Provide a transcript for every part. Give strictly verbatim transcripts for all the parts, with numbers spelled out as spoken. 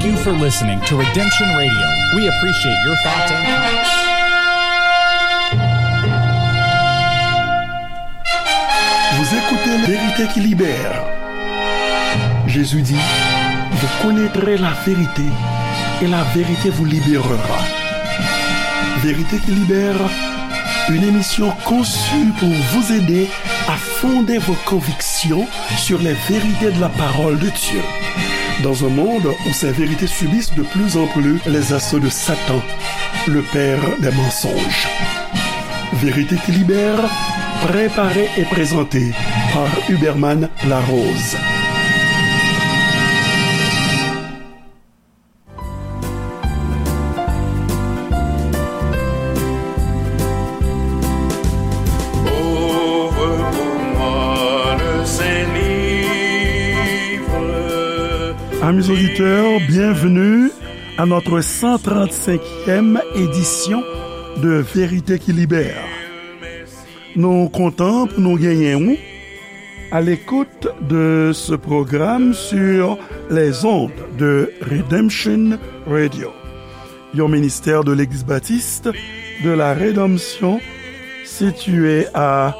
Thank you for listening to Redemption Radio. We appreciate your thoughts and comments. Vous écoutez La Vérité qui libère. Jésus dit, vous connaîtrez la vérité et la vérité vous libérera. Vérité qui libère, une émission conçue pour vous aider à fonder vos convictions sur les vérités de la parole de Dieu. Dans un monde où ces vérités subissent de plus en plus les assauts de Satan, le père des mensonges. Vérité qui libère, préparée et présentée par Huberman Larose. Ouvre pour moi le saint livre. Amis auditeurs, bienvenue à notre cent trente-cinquième édition de Vérité qui libère. Nou kontan pou nou genyen ou à l'écoute de ce programme sur les ondes de Redemption Radio, yon ministère de l'Église baptiste de la Rédemption située à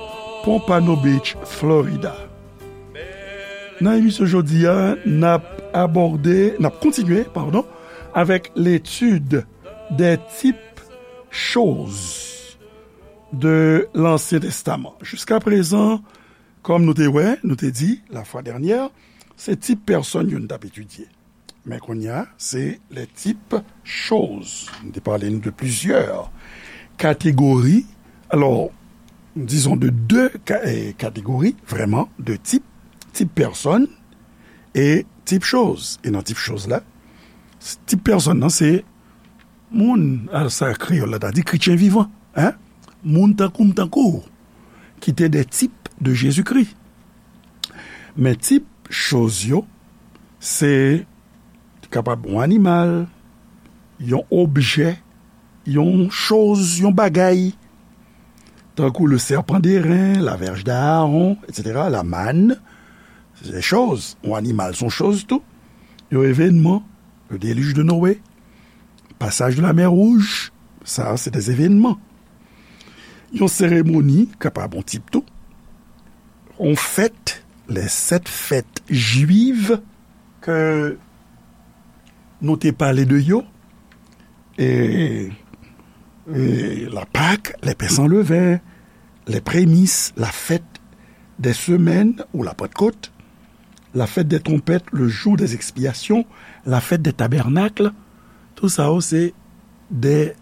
Pompano Beach, Florida. Nan emisyon jodi a, n ap abòde, n ap kontinye, padon, avec l'étude des types choses de l'Ancien Testament. Jiska prezan, kòm nou te wè, nou te di, la fois dernière, se tip pèsòn yo n t ap etidye. Men kounye a, se les types choses. Nou te pale nou de plusieurs catégories. Alors, disons de deux ca-, eh, catégories, vraiment, de types. Tip pèsòn e tip choz. E nan tip choz la, tip pèsòn nan, se moun, a, sa kreyòl la ta di, kretyen vivan, hein? Moun tankou m, tankou w, ki te des types de Jésus-Christ. Men tip choz yo, se kapab yon animal, yon objè, yon choz, yon bagay, tankou le serpent d'airain, la verge d'Aaron, et cetera, la manne, se choz, yon animal, se yon choz tou. Yon evènman, le déluge de Noé, passage de la mer Rouge, sa, se des événements. Yon seremoni, kapab yon tip tou. Yon fèt, les sept fêtes juives ke nou te pale de yo, e, e la Pâque, les pains sans levain, les prémices, la fête des semaines ou la Pentecôte, la fête des trompettes, le jour des expiations, la fête des tabernacles, tout sa yo se de,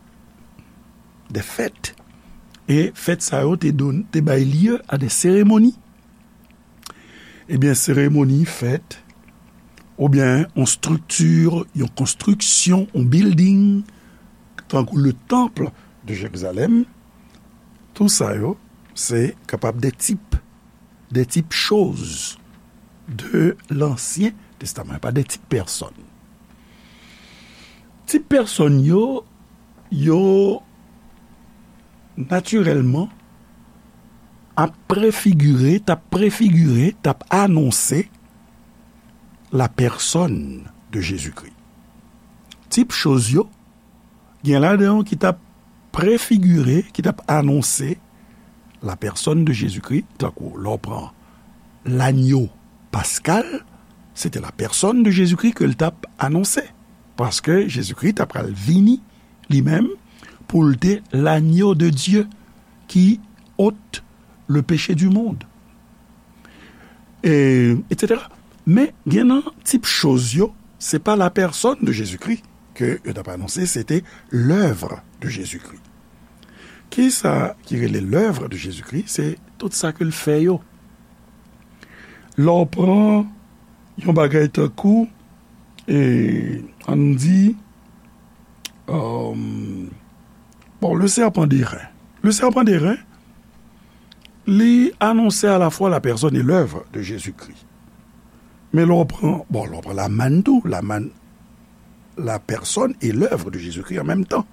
de fèt. E fèt sa yo te don-, te bay lye a de seremoni. Ebyen, seremoni, fèt, oubyen yon estrikti, yon konstriksyon, yon building, tankou le temple de Jérusalem, tout sa yo, se kapab de tip, de tip choz de l'Ancien Testament, pa de tip pèsòn. Tip pèsòn yo, yo natirèlman ap prefigire, t ap prefigire, t ap anonse la personne de Jésus-Christ. Tip choz yo, gen ladan yo ki t ap prefigire, ki t ap anonse la personne de Jésus-Christ, tankou lè w pran lanyo paskal, se te la personne de Jésus-Christ ke l t ap anonse. Paske Jezikri t ap pral vini li menm pou l te l'agneau de Dieu qui ôte le péché du monde, e, et cetera. Men gen nan tip choz yo, se pa la personne de Jésus-Christ ke yo t ap anonse, se te l'œuvre de Jésus-Christ. Kisa ki rele l'œuvre de Jésus-Christ? Se tout sa ke l fè yo. Lè w pran yon bagay tankou, e, ann di, euh, bon, le serpent d'airain. Le serpent d'airain, li anonse à la fois la personne et l'œuvre de Jésus-Christ. Men lè w pran, bon, lè w pran la manne tou, la manne, la personne et l'œuvre de Jésus-Christ en même temps.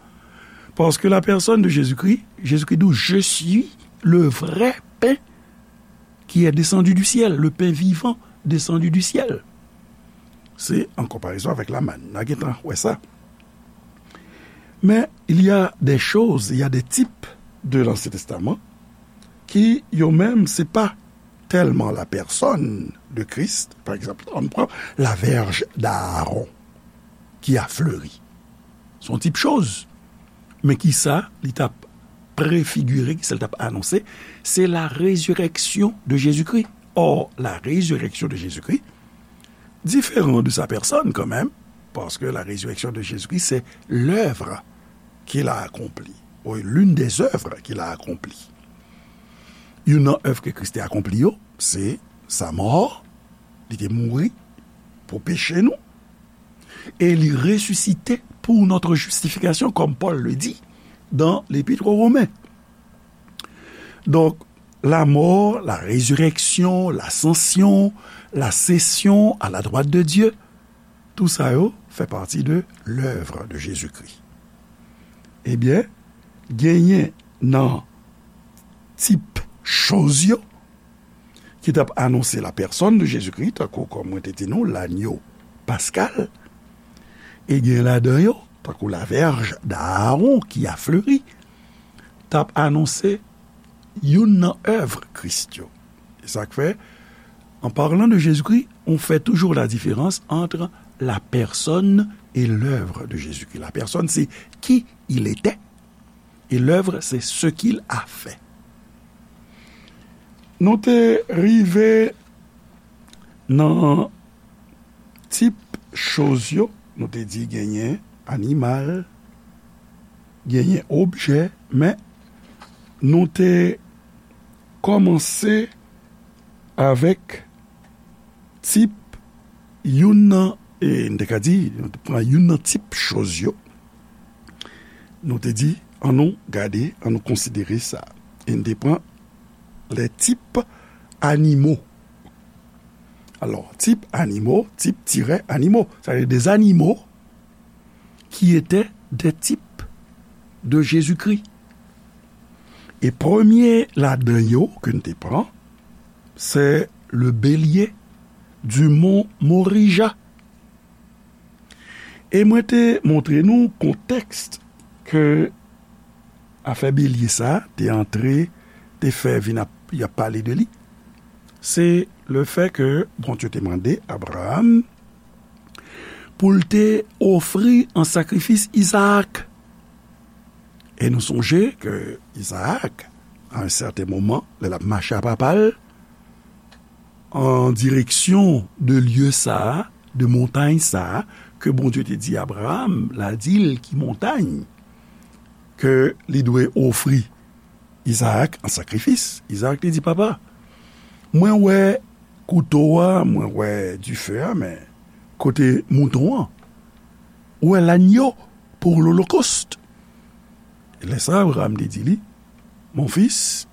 Parce que la personne de Jésus-Christ, Jésus-Christ dit, je suis le vrai pain qui est descendu du ciel, le pain vivant descendu du ciel. Se an konparezon avèk lamann. N a gentan wè sa. Men, il y a des choses, il y a des types de l'Ancien Testament ki yo menm, se pa tèlman la pèsòn de Kris. Pa egzanp, ann pran la vèj d'Aaron ki a fleri. Se yon tip choz. Men kisa li t ap prefigire, kisa li t ap anonse? Se la résurrection de Jésus-Christ. Or, la résurrection de Jésus-Christ différent de sa personne quand même, parce que la résurrection de Jésus-Christ, c'est l'œuvre qu'il a accomplie, ou l'une des œuvres qu'il a accomplie. Youn nan èv ke Kris te akonpli yo, se sa mò, li te mouri pou peche nou, e li resisite pour notre justification, comme Paul le dit dans l'Épître aux Romains. Donc, la mort, la résurrection, l'ascension, la session à la droite de Dieu, tout sa yo fè pati de l'œuvre de Jésus-Christ. Ebyen, genyen nan tip choz yo ki t ap anonse la personne de Jésus-Christ, tankou, kòm mwen te di nou, lanyo paskal, e gen ladan yo, tankou la vèj d'Aaron ki a fleri, t ap anonse youn nan èv Kris yo. E sa k fè, en parlant de Jésus-Christ, on fait toujours la différence entre la personne et l'œuvre de Jésus-Christ. La personne, c'est qui il était, et l'œuvre, c'est ce qu'il a fait. Nou te rive nan tip choz yo, nou te di genyen animal, genyen objè, men nou te kòmanse avèk tip youn nan, e n te ka di, nou te pran youn nan tip choz yo. Nou te di, annou gade, annou konsidere sa. E n te pran les types animaux. Alors, types animaux, types tiret animaux, c'est-à-dire des animaux qui étaient des types de Jésus-Christ. E premye ladan yo ke n te pran, se le bélier du mont Morija. E mwen te montre nou kontèks ke afè belye sa a te antre, te fè vin ap, y ap pale de li. Se le fè ke Bondye te mande Abraram pou l te ofri an sakrifis Izaak. E nou sonje ke Izaak, a yon sèten moman, lè l ap mache a papa l, an direksyon de lye sa a, de montay sa a, ke Bondye te di Abraram, l a di l ki montay ke li dwe ofri Izaak an sakrifis. Izaak te di, "Papa, mwen wè kouto a, mwen wè dife a, men kote mouton an? Ou wè lanyo pour l'holocauste?" Lè sa a, Abraram te di li, "Mon fils,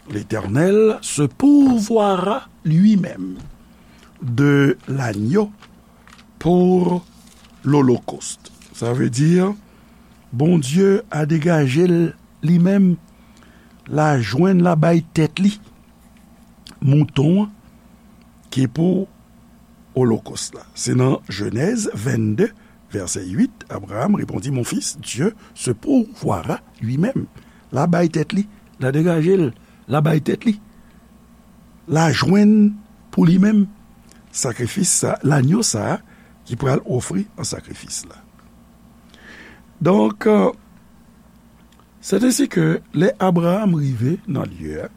l'Éternel se pourvoira lui-même de l'agneau pour l'holocauste." Sa vle di, Bondye a degaje l li menm, l a jwenn, l a bay tèt li mouton an ki pou olokòs la. Se nan Jenèz vennde, vèsè uit, Abraham répondit, "Mon fils, Dieu se pourvoira lui-même." L a bay tèt li, l a degaje l, l a bay tèt li. L a jwenn pou li menm sakrifis sa, lanyo sa a ki pral ofri an sakrifis la. Donk, euh, c'est ainsi que lè Abraham rive nan lye a,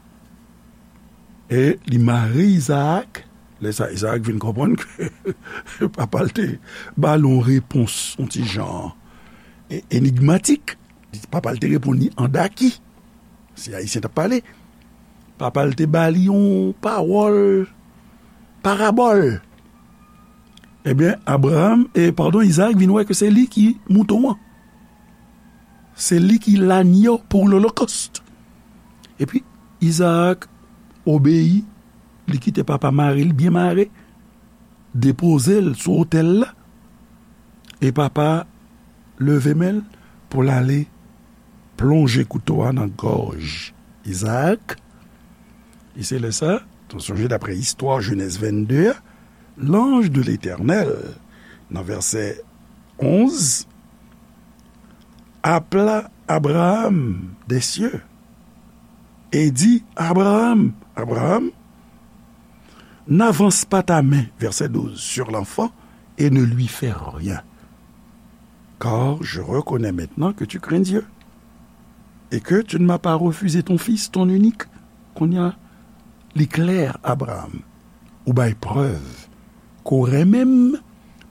e li mare Izaak, lè sa Izaak vin konprann ke papa l te ba l yon repons, yon ti jan, e, enigmatik. Papa l te reponn li an daki. Si Ayisyen t ap pale, papa l te ba li yon pawòl parabòl. Ebyen, Abraham, e, padon, Izaak vin wè ke se li ki mouton an. Se li ki lanyo pou lolokòst. Epi, Izaak obeyi, li kite papa mare l byen mare, depoze l sou otèl la. E papa leve men l pou l ale plonje kouto a nan gòj Izaak. E se lè sa, nou sonje daprè istwa Jenèz vennde a, l'ange de l'Éternel Nan vèsè onz, appela Abraham des cieux et dit, Abraham, Abraham, n'avance pas ta main, verset douze, sur l'enfant et ne lui fais rien. Car je reconnais maintenant que tu crains Dieu et que tu ne m'as pas refusé ton fils, ton unique. Kounye a, li klè, Abraham, ou bay prèv ke w renmen m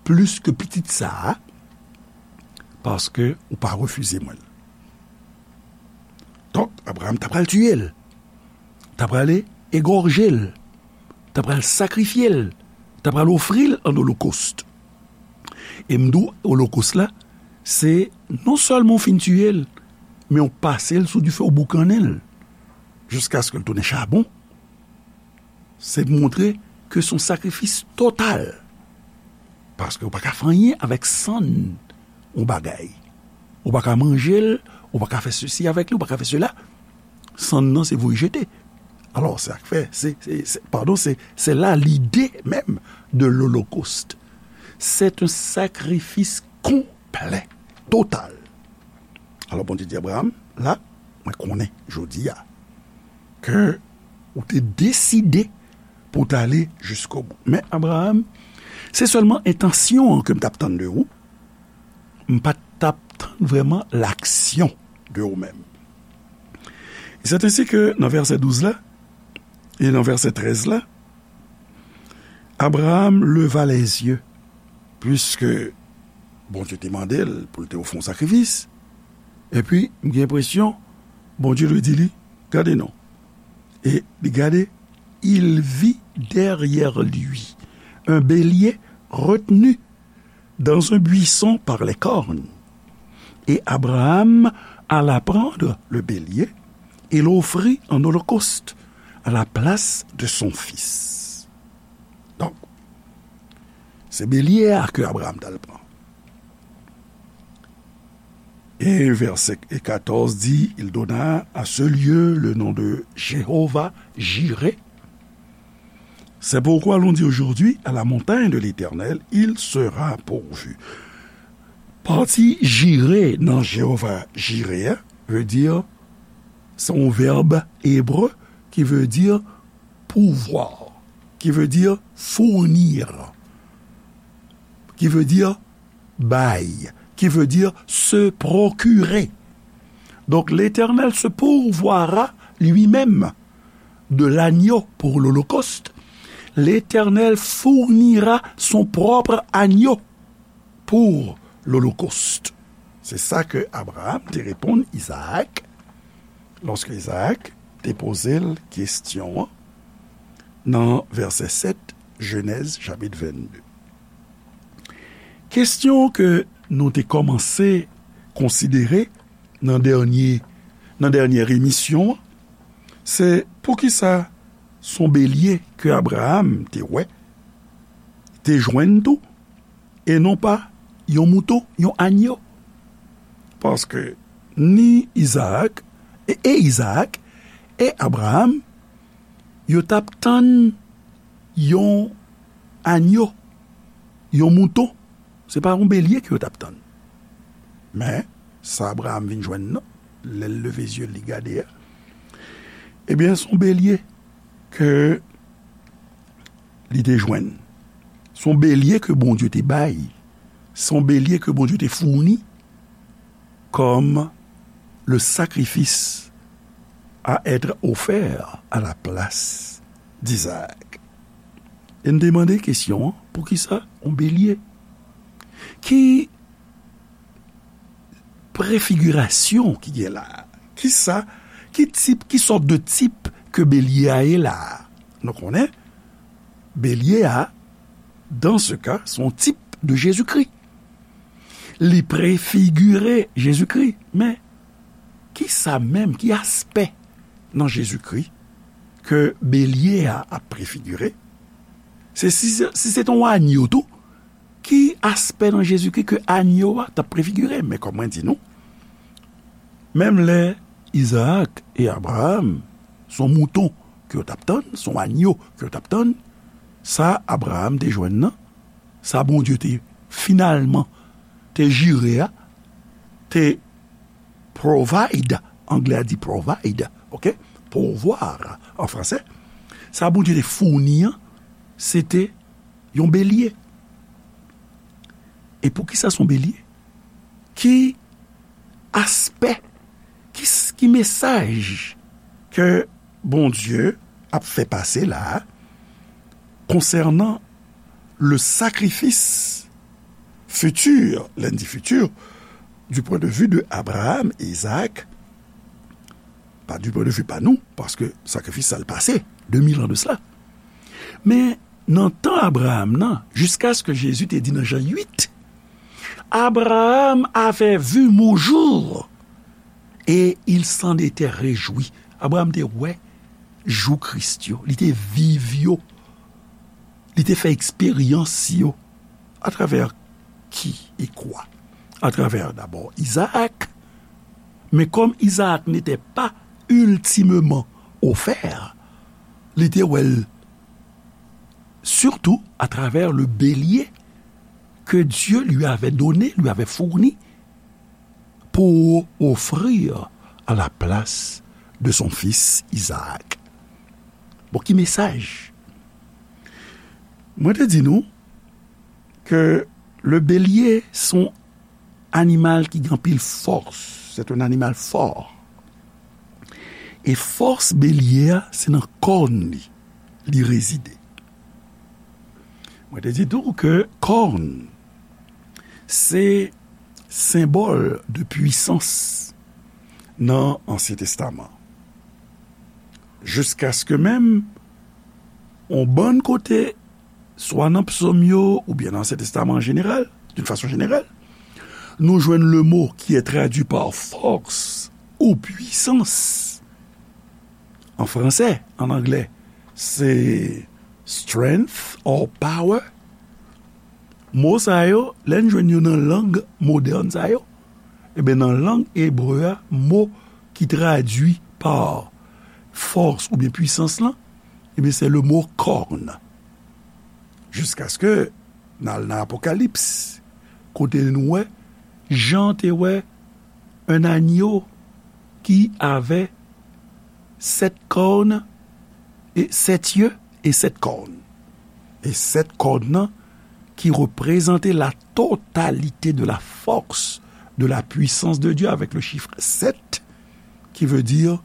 plis ke pitit sa a, paske ou pa refize mwen l. Donk, Abraham ta pral tiye l, ta pral egòje l, ta pral sakrifye l, ta pral ofri l an olokòst. E m di w, olokòst la, se non sèlman w fin tiye l, men w pase l sou dife, w boukannen l, jiskaske l tounen chabon. Se montre ke se yon sakrifis total. Paske ou pa ka fè anyen avèk sann yon bagay. Ou pa ka manje l, ou pa ka fè sesi avèk li, ou pa ka fè sela. Sann nan se voye jete. Alò, se sa k fè, se, se, se, padon, se, se la lide menm de l'olokòst. C'est un sacrifice complet, total. Alò, Bondye di Abraham, la, mwen konnen jodi a ke ou te deside pou w t ale jiskobou. Men Abraham, se sèlman entansyon an ke m t ap tann de ou. M pa t ap tann vrèman laksyon de ou menm. C'est ainsi que nan vèsè douz la, e nan vèsè trèz la, Abraham leva les yeux, puiske Bondye te mande l pou l te ofri yon sakrifis, epi m gen enpresyon Bondye dwe di li, gade non. E li gade, il vit derrière lui un bélier retenu dans un buisson par les cornes. Et Abraham alla prendre le bélier et l'offrit en holocauste à la place de son fils. Donk, se belye a ke Abraham t al pran. E vèsè katòz di, il donna à ce lieu le nom de Jéhovah Jireh. C'est pourquoi l'on dit aujourd'hui, à la montagne de l'Éternel, il sera pourvu. Pati Jireh nan Jéhovah Jireh a, vle di, se yon vèb ebre ki vle di pourvoir, qui veut dire fournir, qui veut dire bay, qui veut dire se procurer. Donc l'Éternel se pourvoira lui-même de l'agneau pour l'holocauste. L'Éternel fournira son propre agneau pour l'holocauste. Se sa ke Abraham te reponn Izaak lòske Izaak te poze l kesyon an nan vèsè sèt, Jenèz chapit vennde. Kesyon ke nou te kòmanse konsidere nan dènye, nan dènye emisyon an, se poukisa se yon belye ke Abraham te wè, te jwenn tou, e non pa yon mouton, yon agno. Paske ni Izaak, e, e Izaak, e Abraham, yo t ap tann yon agno, yon mouton. Se pa yon belye ke yo t ap tann. Men, sa Abraham vin jwenn nan, lè l leve zye l, li gade a, ebyen, se yon belye ke li te jwenn. Se yon belye ke Bondye te bay. Se yon belye ke Bondye te founi comme le sacrifice à être offert à la place d'Isaac. E n te mande kesyon an, poukisa yon belye? Ki prefigirasyon ki gen la a? Kisa, ki tip, ki sòt de tip ke belye a ye la a? Nou konnen, belye a, dans ce cas, se yon tip de Jezikri. Li prefigire Jezikri. Men, kisa menm, ki aspè nan Jezikri ke belye a ap prefigire? Se si, si se te yon agno tou, ki aspè nan Jezikri ke agno a t ap prefigire? Men kòm mwen di nou, menm lè Izaak e Abraham, se yon mouton ke yo t ap tann, se yon agno ke yo t ap tann, sa Abraham te jwenn nan, sa Bondye te finalman te jire a, te provide, anglè a di provide, ok? Pourvoir an fransè. Sa Bondye te founi an, se te yon belye. E poukisa se yon belye? Ki aspè, ki, ki mesaj ke Bondye ap fè pase la a konsènan le sacrifice futur, lè n di futur, du point de vue de Abraham et Isaac, pa du point de vue pa nou, paske sakrifis sa l pase de mil an de sela. Men nan tan Abraham nan, jiskaske Jezi te di nan Jan uit, Abraham avait vu mon jour et il s'en était réjoui. Abraham te wè jou Kris yo, li te viv yo, li te fè eksperyans yo. Atravè ki e kwa? Atravè dabò Izaak. Men kòm Izaak n'était pas ultimement offert, li te wè l surtout à travers le bélier que Dieu lui avait donné, lui avait fourni pour offrir à la place de son fils Isaac. Bon, ki mesaj? Mwen te di nou ke le bélier se yon animal ki gen anpil fòs. C'est un animal fort. E fòs belye a, se nan kòn li, li rezide. Mwen te di tou ke kòn, se senbòl de pwisans nan Ansyen Testaman. Jiskaske menm, on bann kote, swa nan psòm yo, oubyen nan Ansyen Testaman an jeneral, d'une façon générale, nou jwenn le mo ki est traduit par force ou puissance. An fransè, an anglè, se strength or power. Mo sa yo, lè n jwenn yo nan lang modèn sa yo, ebyen, nan lang ebre a, mo ki tradui pa fòs oubyen pwisans lan, ebyen, se le mo kòn. Jiskaske n al nan Apokalips, kote nou wè, Jan te wè un agneau qui avait sept cornes et sept yeux et sept cornes. E sèt kòn nan ki reprezante la totalité de la force, de la puissance de Dieu avec le chiffre sept, qui veut dire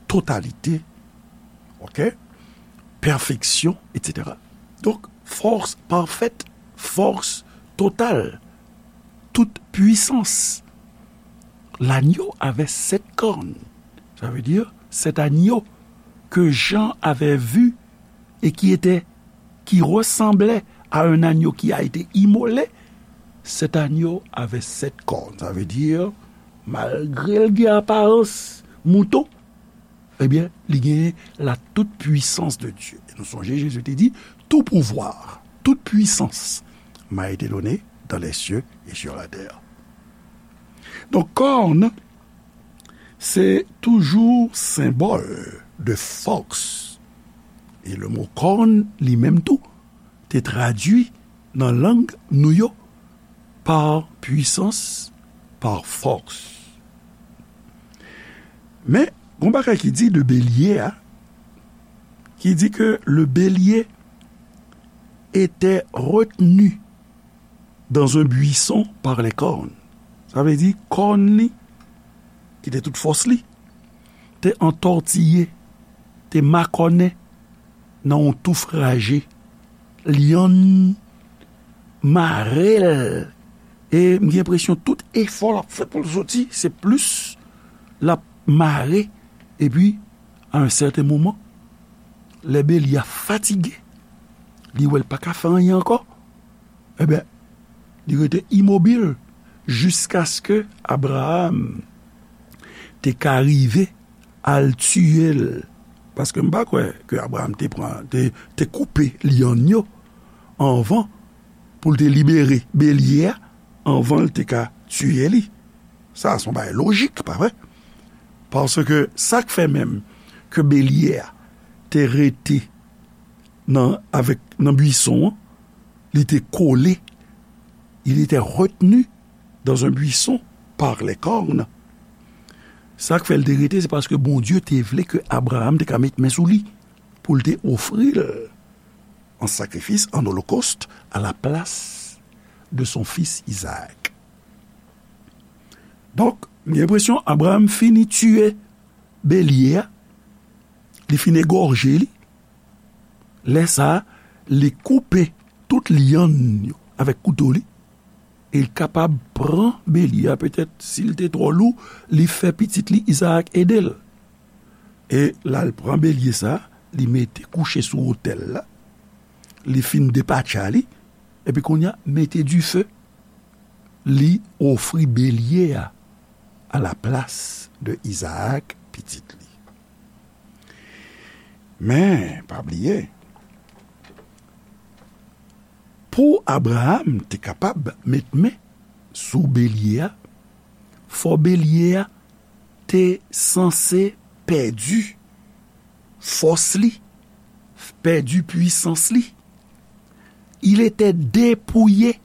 totalité, ok? Perfection, et cetera. Donc, force parfaite, force totale, toute puissance. L'agneau avait sept cornes. Ça veut dire, cet agneau que Jean avait vu et qui était, qui ressemblait à un agneau qui a été immolé, cet agneau avait sept cornes. Ça veut dire, malgré l gen aparans mouton, ebyen, li genyen la toute puissance de Dieu. E nou sonje, Jezi te di, tout pouvoir, toute puissance m'a été donnée dans les cieux et sur la terre. Donk, kòn, se toujou senbòl de fòs. E le mo kòn, li menm tou, te tradui nan lang nou yo, par puissance, par force. Men, gon bagay ki di de belye a, ki di ke le bélier était retenu dans un buisson par les cornes. Sa vle di, kòn li, ki te tout fòs li, te antòtiye, te makònen nan yon touf raje. Lyann mare l. E m gen enpresyon tout efò l ap fè pou l soti, se plis l ap mare. Epi, a yon sèten moman, lè belye a fatige, li wè l pa ka fè anyen ankò, ebyen, li rete imobil jiskaske Abraram te ka rive al tiye l. Paske m pa kwè ke Abraram te pran, te, te koupe lyann yo anvan pou l te libere belye a, anvan l te ka tiye li. Sa a se yon bagay lojik, pa vre? Paske sa k fè menm ke belye a te rete nan, avèk, nan bwison an, li te kole Il était retenu dans un buisson par les cornes. Sa k fè l te rete, se paske Bondye te vle ke Abraram te ka met men sou li pou l te ofri l an sakrifis, an olokòst, à la place de son fils Isaac. Donk, m gen enpresyon Abraram fini tiye belye a, li fin egòje li. Lè sa a, li koupe tout lyann yo avèk kouto li, e l kapab pran belye a, petèt, si l te twò lou, li fè pitit li Izaak ede l. E l al pran belye sa a, li mete kouche sou otèl la, li fin depatcha li, epi kounye a, mete dife, li ofri belye a à la place de Izaak, pitit li. Men, pa bliye, pou Abraram te kapab met men sou belye a, fò belye a te sanse pèdi fòs li, pèdi pwisans li. Il était dépouillé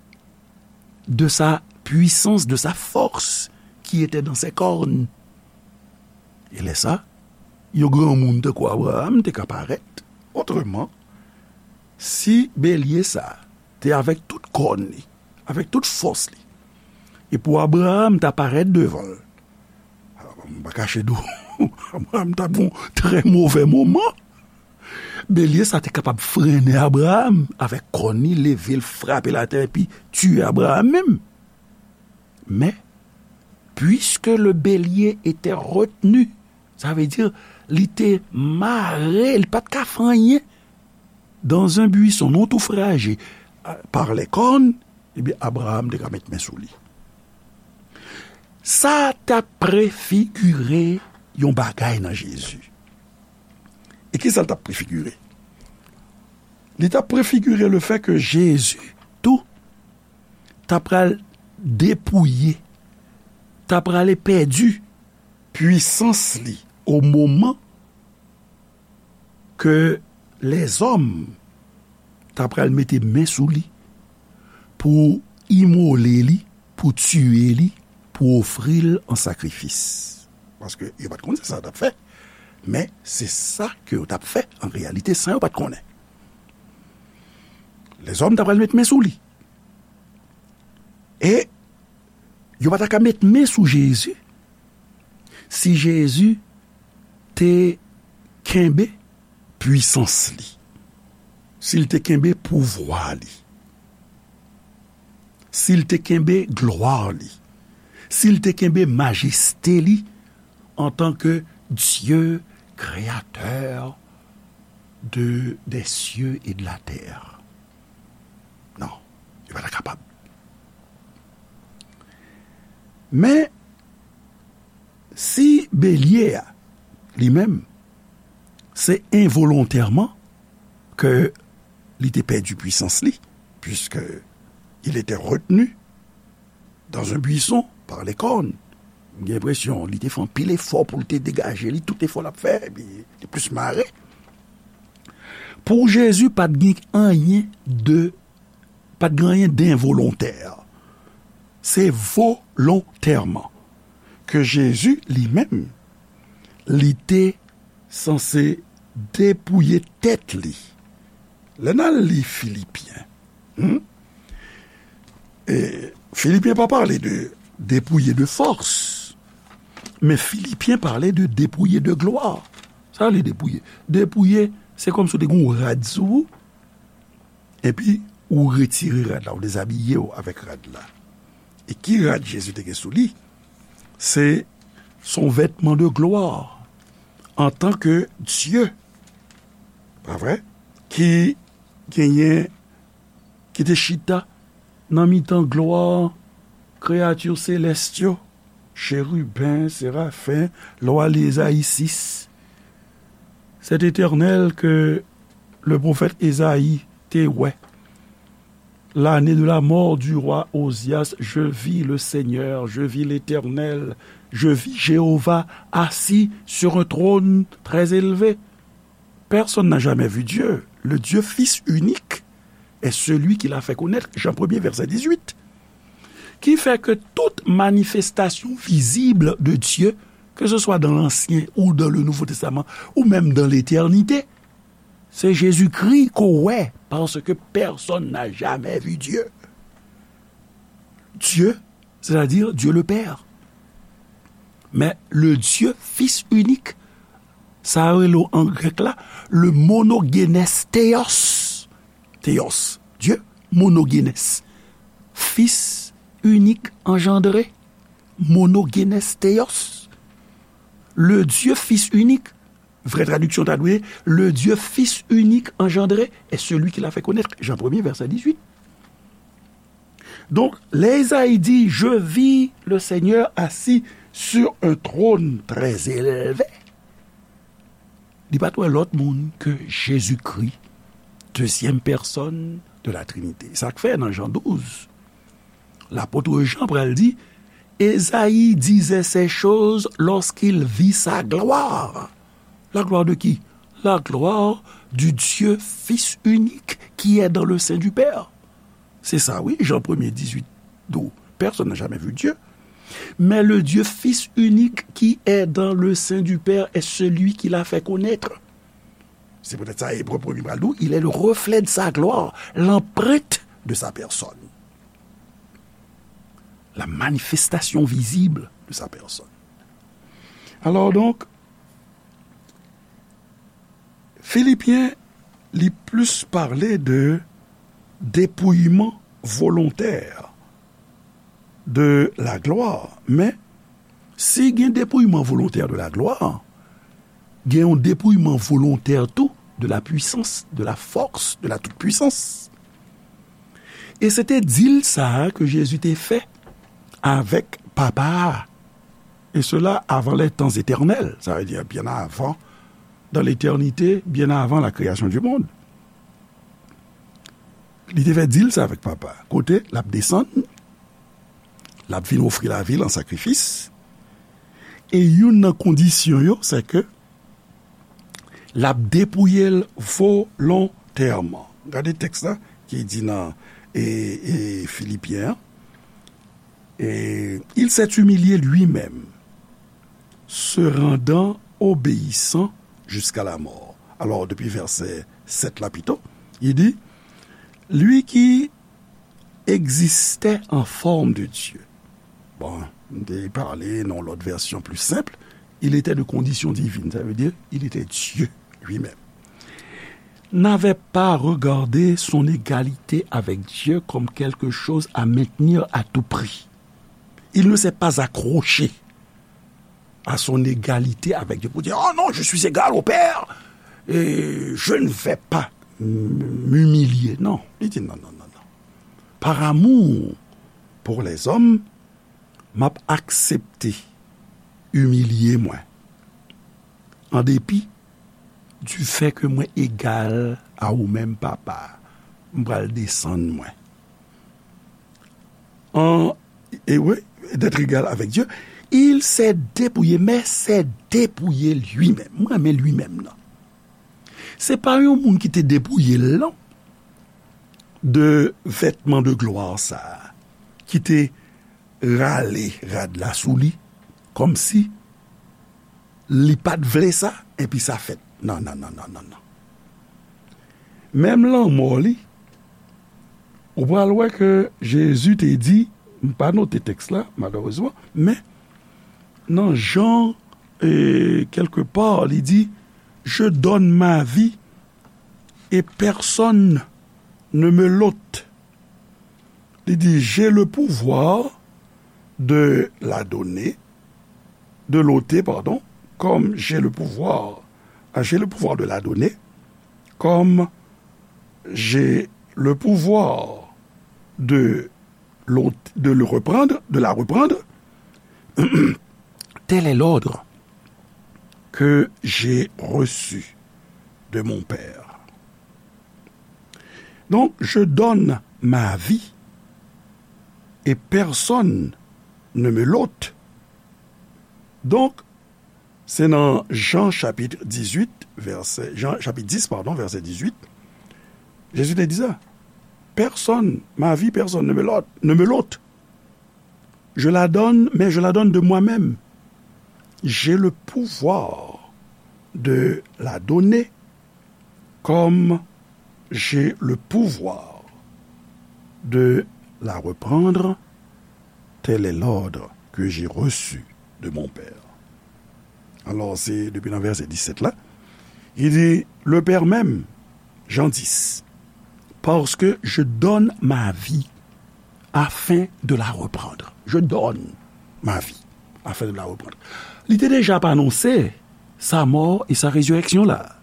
de sa puissance, de sa force qui était dans ses cornes. E lè sa, yon granmoun tankou Abraram te ka parèt. Otreman, si belye sa te avèk tout kòn li, avèk tout fòs li, e pou Abraram ta parèt devan l, m pa kache di w, Abraram t ap gon trè movè moman. Belye sa te kapab frennen Abraram avèk kòn li, leve l, frape l atè, epi tiye Abraram menm. Men, puisque le bélier était retenu, sa vle di, li te mare, li pa t ka fè anyen, dans un buisson, nan yon tou fraje, par les cornes, ebyen, Abraram te ka met men sou li. Sa t ap prefigire yon bagay nan Jezi. E ki sa l t ap prefigire? Li t ap prefigire le fè ke Jezi tou ta pral depouye, ta prale pèdi pwisans li o moman ke lèzòm ta pral mete men sou li pou imole li, pou tiye li, pou ofri l an sakrifis. Paske yo pa t konn se sa yo t ap fè, men se sa ke yo t ap fè an reyalite san yo pa t konnen. Lèzòm ta pral met men sou li. E yo pa ta ka met men sou Jezi si Jezi te kenbe pwisans li, si l te kenbe pouvwa li, si l te kenbe glwa li, si l te kenbe majeste li antanke Dye, kreyatè de, des cieux et de la terre. Non, li pa ta kapab. Men, si belye a, li menm, se envolontèman ke li te pèdi pwisans li, puisque il était retenu dans un buisson par les cornes. M gen enpresyon li te fè anpil efò pou l te degaje li, tout efò l ap fè, epi li plis mare. Pou Jezi, pa t gen anyen de, pa t gen anyen denvolontè. Se volontèman ke Jezi, li menm, li te sanse depouye tèt li. Lè n al li Filipyen, hmm? E, Filipyen pa pale de depouye de fòs, men Filipyen pale de depouye de glwa. Sa vle depouye? Depouye, se kòmsi w te gen yon rad sou ou, epi ou retire rad la, ou dezabiye w avèk rad la. E ki rad Jezi te gen sou li? Se, se yon vètman de glwa, antanke Dye, pa vre? Ki genyen, ki te chita nan mitan glwa kreyati selès yo, cheriben, serafen, lè w al li Ezayi sis. Cet Éternel que le prophète Ésaïe te wè. L'année de la mort du roi Ozias, je vis le Seigneur, je vis l'Éternel, je vis Jéhovah assis sur un trône très élevé. Personne n'a jamais vu Dieu. Le Dieu Fils unique est celui qui l'a fait connaître. Jean premier, verset dix-huit. Ki fè ke tout manifestasyon vizib de Dye, ke se swa dan Lansyen ou dan le Nouvo Testaman, ou menm dan letènite, se Jezikri ke w wè, paske pèsonn n'a jamè vi Dye. Dye, sètadi Dye le Pè. Men le Dye Fis inik, sa yo rele an grèk la, le monogenes theos. Theos, Dye, monogenes. Fis inik anjandre, monogenes theos. Le Dye Fis inik, vrè tradiksyon ta dwe, le Dye Fis inik anjandre est celui qu'il a fait connaître. Jan premye, vèsè dizuit. Donk, lè Ezayi di, je vis le Seigneur assis sur un trône très élevé, li pa t wè lòt moun ke Jezikri, dezyèm pèsòn de la Trinite. Sa k fè nan Jan douz, lapot Jan pral di, Esaïe disait ces choses lorsqu'il vit sa gloire. La gloire de qui? La gloire du Dieu Fils unique qui est dans le sein du Père. Se sa, wi, Jan premye dizuit, dou, personne n'a jamais vu Dieu, mais le Dieu Fils unique qui est dans le sein du Père est celui qui l'a fait connaître. Se poutèt sa, Ebre premye pral di w, il est le reflet de sa gloire, l'empreinte de sa personne, la manifestation visible de sa personne. Alors donc, Filipyen, li plis pale de depouyman volontè de la glwa. Men, si gen depouyman volontè de la glwa, gen yon depouyman volontè tou de la puissance, de la force, de la toute-puissance. E se te dil sa a ke Jezi te fè avèk Papa a. Et cela avant les temps éternels, ça veut dire bien avant, dans l'éternité, bien avant la création du monde. Li te fè dil sa avèk Papa. Kote l ap desann, l ap vin ofri lavi l an sakrifis. E youn nan kondisyon yo, se ke l ap depouye l volontèman. Gade tèks la ki di nan e, e, Filipyen an. Et il s'est humilié lui-même, se rendant obéissant jusqu'à la mort. Alors, depuis verset sept là plutôt, il dit, lui qui existait en forme de Dieu. Bon, m te pale nan yon lòt vèsyon pli senp, il était de condition divine, ça veut dire il était Dieu lui-même. N'avait pas regardé son égalité avec Dieu comme quelque chose à maintenir à tout prix. Il ne s'est pas accroché à son égalité avec Dieu pour dire, oh non, je suis égal au Père et je ne vais pas m'humilier. Non, li di non, non, non, non. Par amour pour les hommes, m ap aksepte imilye mwen. An depi du fait que mwen egal a ou menm, Papa, m pral desann mwen. En, e wi, d'être égal avec Dieu, il s'est dépouillé, mais s'est dépouillé lui-même. Mwen renmen lui-même nan. Se pa yon moun ki te depouye l, non, de vètman de glwa sa a, ki te rale rad la sou li, kòmsi li pa t vle sa, epi sa fèt. Non, non, non, non, non, non. Menm lanmò li, ou pral wè ke Jezi te di, m pa note tèks la, malerezman, men nan Jan, e, quelque part, li di, je donne ma vie et personne ne me l'ôte. Li di, j'ai le pouvoir de la donner, de l'ôter, pardon, comme j'ai le pouvoir, ah, j'ai le pouvoir de la donner, comme j'ai le pouvoir de l'ôte, de le reprendre, de la reprendre. Tel est l'ordre que j'ai reçu de mon Père. Donc, je donne ma vie et personne ne me l'ôte. Donk, se nan Jan chapit dizuit, vèsè, Jan chapit dis, padon, vèsè dizuit, Jezi te di sa. Personne, ma vie, personne ne me l'ôte, ne me l'ôte. Je la donne, mais je la donne de moi-même. J'ai le pouvoir de la donner comme j'ai le pouvoir de la reprendre. Tel est l'ordre que j'ai reçu de mon Père. Alò, se depi nan vèsè disèt la, li di, le Père m'aime, Jean dix, parce que je donne ma vie afin de la reprendre. Je donne ma vie afin de la reprendre. Li te deja ap anonse sa mò e sa rezirèksyon la.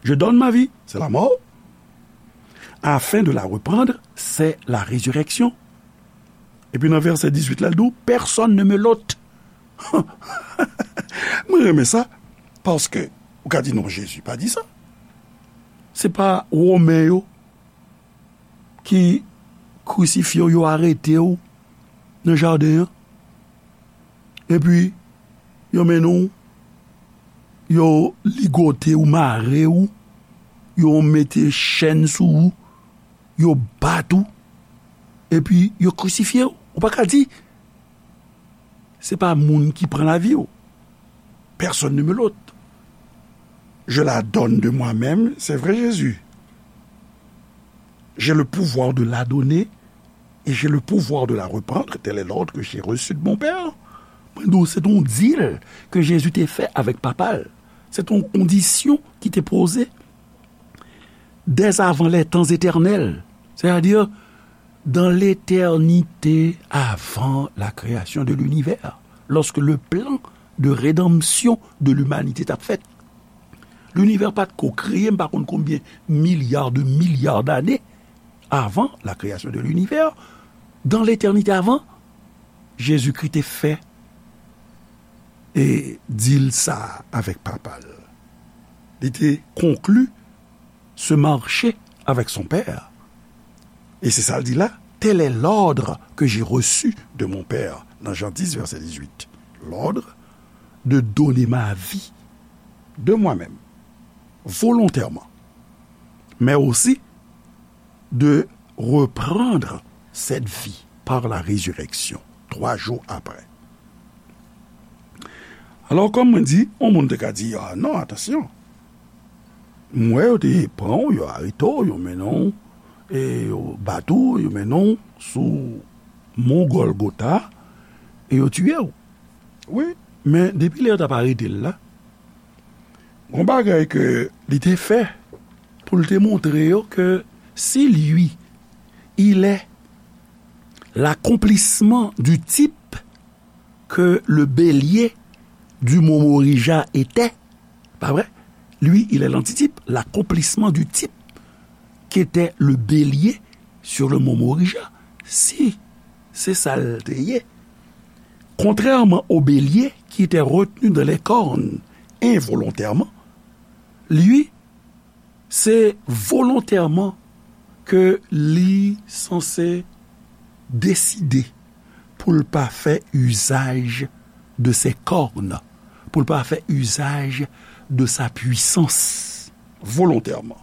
Je donne ma vie, c'est la mort. Afin de la reprendre, c'est la résurrection. Epi nan vèsè dizuit la, l di w, personne ne me l'ôte. Mwen renmen sa, paske ou ka di non, Jezi pa di sa. Se pa Women yo ki krisifye w, yo arete w nan jaden an. Epi, yo mennen w, yo ligote w, mare w, yo mete chèn sou ou, yo bat ou, epi yo krisifye w. Ou pa ka di, se pa moun ki pran lavi w. Personne ne me l'ôte. Je la donne de moi-même, c'est vrai, Jésus. J'ai le pouvoir de la donner et j'ai le pouvoir de la reprendre, tel est l'ordre que j'ai reçu de mon Père. Mwen di w, se t on deal ke Jezi te fè avèk Papa l. Se t on kondisyon ki te poze dès avant les temps éternels, c'est-à-dire dans l'éternité avant la création de l'univers, lorsque le plan de rédemption de l'humanité t ap fèt. Linivè pa t ko kreye, m pa konn konbyen milya de milya dane avan la création de l'univers, dans l'éternité avant, Jezikri te fè e deal sa avèk Papa l. Li te konkli ce marché avec son Père. E se sa l di la, tel est l'ordre que j'ai reçu de mon Père, nan Jan dis, vèsè dizuit. L'ordre de donner ma vie de moi-même, volontairement, mais aussi de reprendre cette vie par la résurrection, trois jours après. Alò, kòm mwen di, yon moun te ka di, ah non, atansyon. M wè yo te pran w, yo arete w, yo mennen w, e yo bat ou, yo mennen w sou Mon Gòlgota, e yo tiye w. Wi, men depi lè yo t ap arete l la, gon bagay ke li te fè pou l te montre yo ke si lui, il est l'accomplissement du type que le bélier du Momorija était, pa vre? Lui, il est l'antitype, l'accomplissement du type qu'était le bélier sur le Momorija. Si se sa l te ye, contrairement au bélier qui était retenu dans les cornes involontairement, lui, se volontèman ke li sanse deside pou l pa fè usage de ses cornes, pou l pa fè usage de sa puissance, volontèman.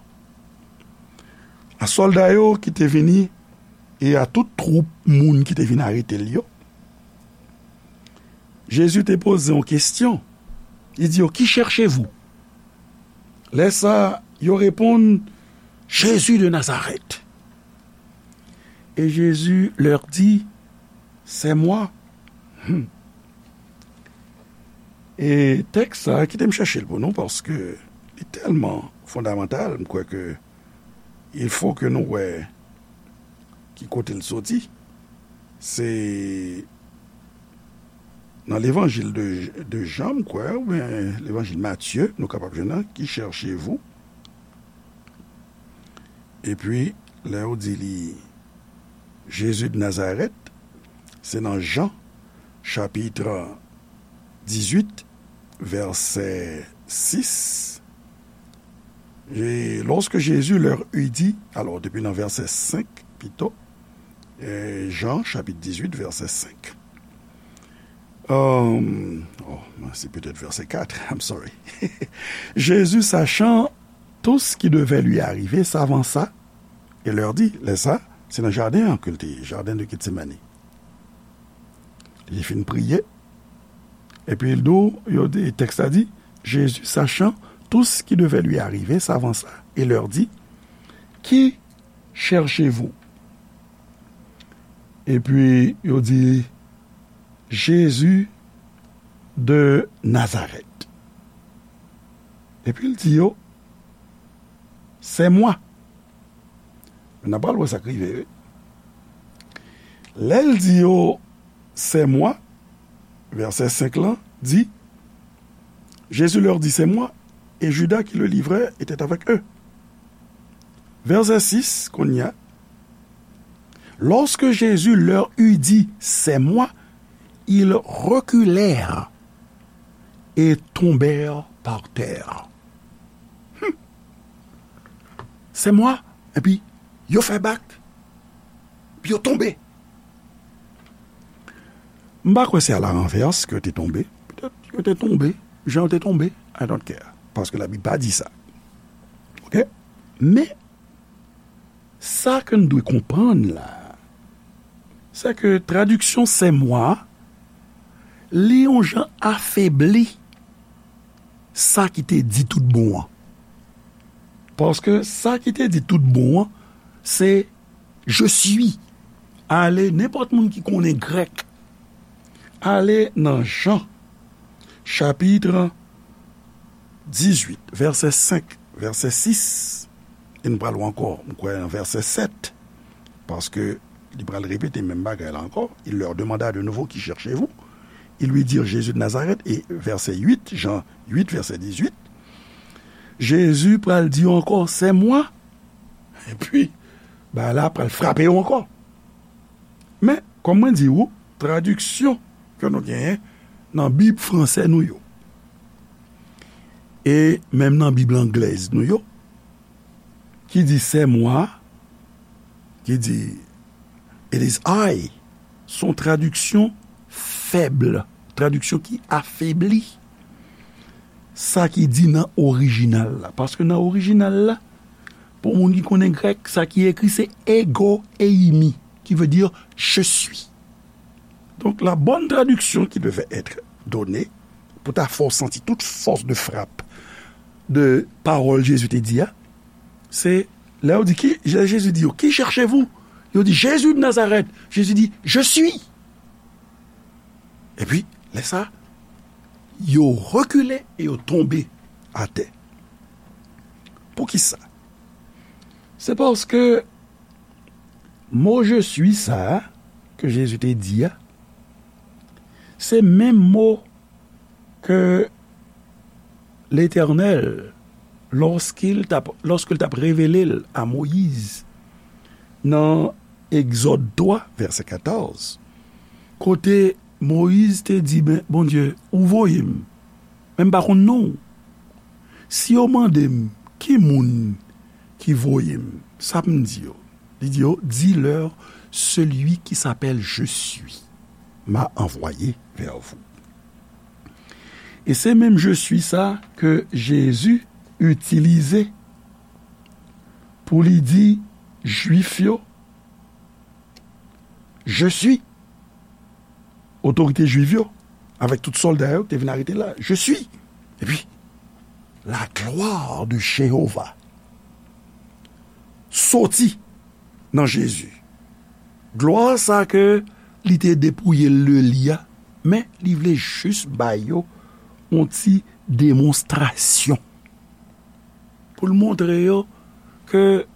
A sòlda yo ki te vini e a tout twoup moun ki te vin arete l yo, Jezi te poze yon kesyon. Li di yo, qui cherchez-vous? Lè sa, yo reponn, Jésus de Nazareth. Et Jésus leur dit, c'est moi. Hmm. E tèks sa, kite m chèche l pou nou, paske li tèlman fondamantal, m kwè ke il faut que nou wè ki kote l soti. Se nan levanjil de, de Jan, m kwè, oubyen levanjil Matye, nou kapab jwenn nan, qui cherchez-vous? Epi, lè yo di li, Jésus de Nazareth, se nan Jan, chapit dizuit, vèsè sis. Et lorsque Jésus leur eut dit, alò, depi nan vèsè senk, pito, e, Jan, chapit dizuit, vèsè senk. Euh, oh, c'est peut-être verset quatre, I'm sorry. Jésus, sachant tout ce qui devait lui arriver, s'avança et leur dit, lè sa, se nan jaden an ke l te ye, jaden de Getsemani. Li fin priye. Epi l di w, yo di, tèks la di, Jésus, sachant tout ce qui devait lui arriver, s'avança et leur dit, Qui cherchez-vous? Epi yo di, Jésus de Nazareth. Epi l di yo, C'est moi. N a pral wè sa k rive, wi. Lè l di yo, C'est moi, vèsè senk lan di, Jésus leur dit, C'est moi, et Judas qui le livrait était avec eux. Vèsè sis, kounye a, Lorsque Jésus leur eut dit, C'est moi, ils reculèrent et tombèrent par terre. Hmm. C'est moi, epi yo fè bak, epi yo tonbe. M pa kwè se à la renverse ke yo te tonbe. Petèt yo te tonbe, jan yo te tonbe, I don't care. Paske Labib pa di sa. Oke? Men, sa ke n dwe konprann la, se ke tradiksyon c'est moi, li yon jan afebli sa ki te di tout bon an. Paske sa ki te di tout bon an, se je suis. Ale, nenpòt moun ki konnen grèk, ale nan Jan, chapit dizuit, vèsè senk, vèsè sis, e n pral wè ankò, m kwè, nan vèsè sèt, paske li pral repete menm bagay la ankò. Il leur demanda de nouveau, Qui cherchez-vous? Ils lui dirent, Jésus de Nazareth. E vèsè uit, Jan uit, vèsè dizuit, Jezi pral di yo ankò, C'est moi. Epi, bagay la pral frape yo ankò. Men, kòm mwen di ou, tradiksyon ke nou genyen nan Bib franse nou yo, e menm nan Bib anglèz nou yo, ki di c'est moi, ki di it is I, se yon tradiksyon fèb, tradiksyon ki afebli sa ki di nan orijinal la. Paske nan orijinal la, pou moun ki konnen grèk, sa ki ekri se ego eimi, qui veut dire je suis. Donc, la bonne traduction qui devait être donnée, pou ta fè w santi tout force de frappe de pawòl Jezi te di a, se lè yo di, ki, lè Jezi di yo, Qui cherchez-vous? Yo di, Jésus de Nazareth. Jezi di, Je suis. Epi, lè sa, yo rekile e yo tonbe atè. Poukisa? Se paske mo je suis sa a ke Jezi te di a, se menm mo ke Letènèl, lorsqu'il t ap, lorsqu'il t ap revele l a Moyiz nan Egzòd twa, vèsè katòz, kote Moyiz te di, ben, Bondye, ou voye m, men m pa konn non w. Si yo mande m, ki moun ki voye m, sa m di yo? Li di yo, Dis-leur, celui qui s'appelle Je suis m'a envoyé vers vous. E se menm Je suis sa ke Jezi itilize pou li di Jwif yo, Je suis. Otorite Jwif yo, avèk tout sòlda yo, te vin arete la. Je suis. Epi, la gloire de Jéhovah soti nan Jezi. Glwa sa ke li te depouye l de li a, men li vle jis ba yo yon ti demonstrasyon. Pou l montre yo ke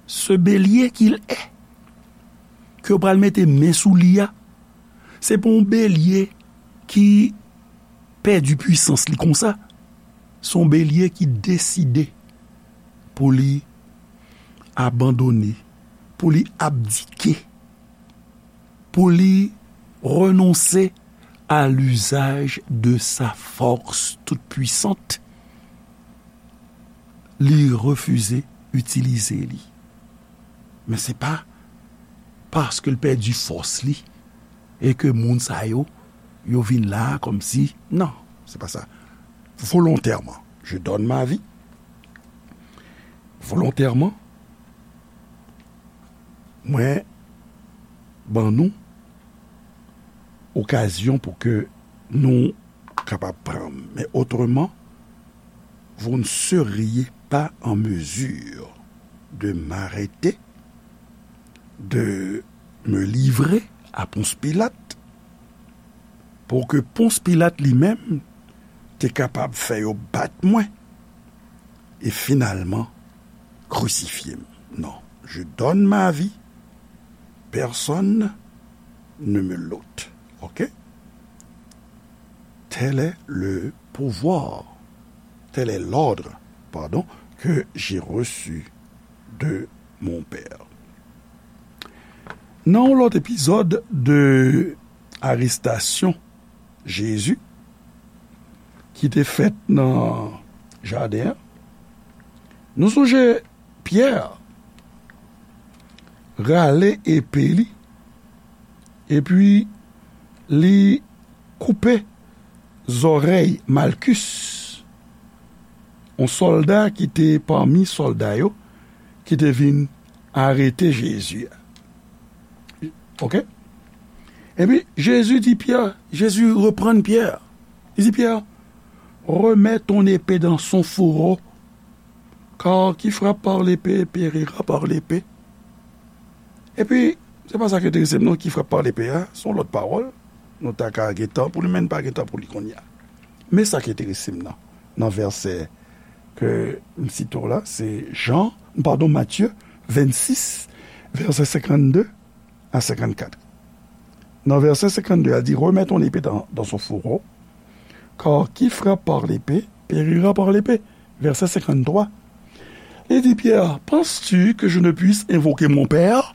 ce bélier qu'il est, ke yo pral mete men sou li a, se pa yon belye ki pèdi pwisans li konsa. Se yon belye ki deside pou li abandone, pou li abdike, pou li renonse à l'usage de sa force toute puissante. Li refize itilize li. Men se pa paske l pèdi fòs li e ke moun sa yo, yo vin la kòmsi, non, se pa sa. Volontèman, je donne ma vie. Volontèman, mwen ban nou okazyon pou ke nou kapab pran. Men otreman, vous ne seriez pas en mesure de m'arrêter, de me livrer à Ponce Pilate, pou ke Ponce Pilate li menm te kapab fè yo bat mwen e finalman krisifye m. Non, je donne ma vie, personne ne me l'ôte. Ok? Tel est le pouvoir, tel est l'ordre, pardon, que j'ai reçu de mon Père. Nan yon lòt epizòd de arestasyon Jezi ki te fèt nan jaden an, nou sonje Pyè rale epe li, epi li koupe zòrèy Malkis, yon sòlda ki te pami sòlda yo ki te vin arete Jezi a. Ok? Epi Jezi di Pyè, Jezi reprann Pyè. Li di Pyè, remets ton épée dans son fourreau, car qui frappe par l'épée périra par l'épée. Epi, se pa sa ki enterese m non, qui frappe par l'épée a, se yon lòt pawòl. Nou ta ka gen tan pou li, men n pa gen tan pou li kounye a. Men sa ki enterese m nan, nan vèsè ke m site w la, se Jan, padon, Matye vennsis, vèsè senkannde a senkannkat. Nan vèsè senkannde a di, remets ton épée dans, dans son fourreau, car qui frappe par l'épée périra par l'épée. Vèsè senkanntwa. Li di Pyè, penses-tu que je ne puisse invoquer mon Père,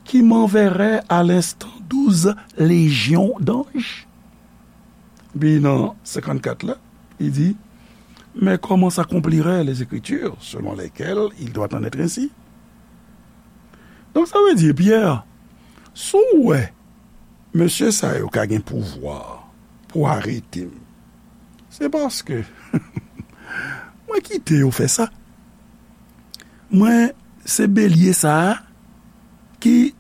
qui m'enverrait à l'instant douze légions d'anges? Epi nan senkannkat la, li di, mais comment s'accompliraient les Écritures selon lesquelles il doit en être ainsi? Donk, sa vle di, Pyè, si w wè mesye sa yo ka gen pouvwa pou arete m, se paske mwen kite yo fè sa. Mwen se belye sa a ki,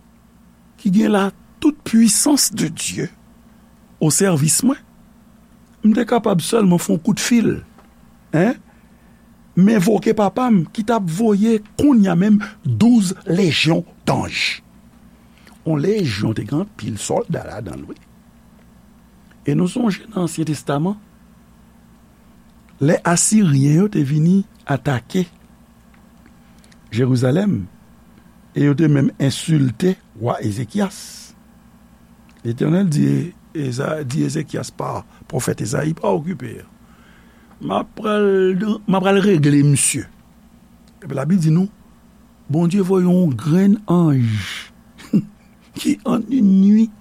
ki gen la toute puissance de Dieu o sèvis mwen. M te kapab sèlman fè yon kout fil, en, m envoke Papa m ki t ap voye kounye a menm douz lejyon danj. Yon lejyon te gen anpil sòlda ladan l, wi. E nou sonje nan Ansyen Testaman, lè Asiryen yo te vini atake Jerizalèm, e yo te menm ensilte wa Ezekyas. Letènèl di, Eza, di Ezekyas pa pwofèt Ezayi, pa okipe. M ap pral, m ap pral regle misye. Epi Labib di nou, Bondye voye yon grenn anj ki an yon nuit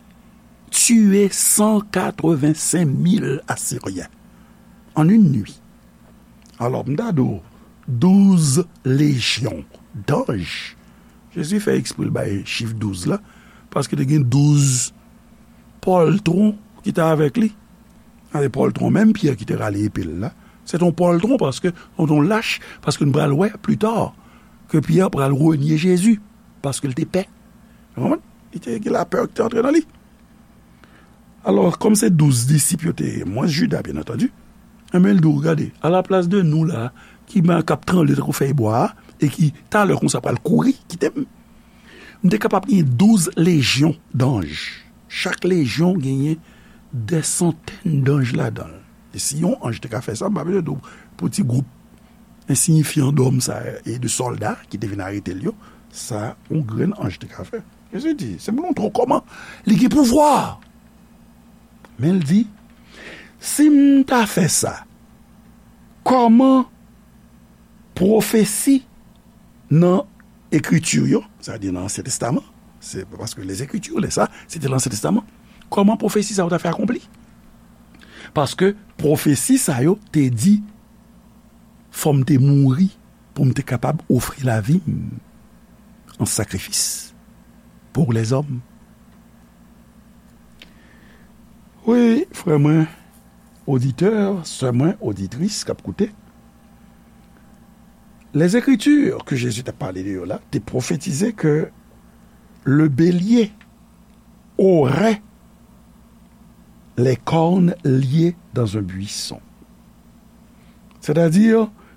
tiye san katrevensenk mil Asiryen. An yon nuit. Alò, m ta di w, douz lejyon danj. Jezi fè eksprè l bay chif douz la, paske te gen douz pòltwon ki te avèk li. Gade pòltwon, menm Pyè ki te rale epe l la, se t on pòltwon, paske, se t on lach, paske nou pral wè pli ta ke Pyè pral renye Jezi, paske l te pè. Ou konprann? Li te gen lapè ki te antre nan li. Alò, kòm se douz disip yo te ye, mwens Jida, byen antandi, enben, l di w, gade, alaplas de nou la, ki men k ap tranble tankou fèy bwa a, e ki, talè konsa, pral kouri, kite m, m te kapab gen douz lejyon danj. Chak lejyon genyen dè santèn danj ladan l. E si yon anj te ka fè sa, m pa bezwen di w pou ti gwoup ensiyifyan dòm sa e de sòlda ki te vin arete l yo, sa yon grenn anj te ka fè. Jezi di, se moun twò kòman li gen pouvwa. Men l di, si m ta fè sa, kòman pwofesi nan Ekriti yo, sa vle di nan Ansyen Testaman, se paske les Écritures, lè sa, se te nan Ansyen Testaman. Kòman pwofesi sa yo ta fè akonpli? Paske pwofesi sa yo te di, fò m te mouri pou m te kapab ofri lavi m an sakrifis pou lèzòm. Wi, frè mwen, oditè, sè mwen, oditris k ap koute, les Écritures ke Jezi t ap pale de yo la te pwofetize ke le bélier aurait les cornes liées dans un buisson. Sètadi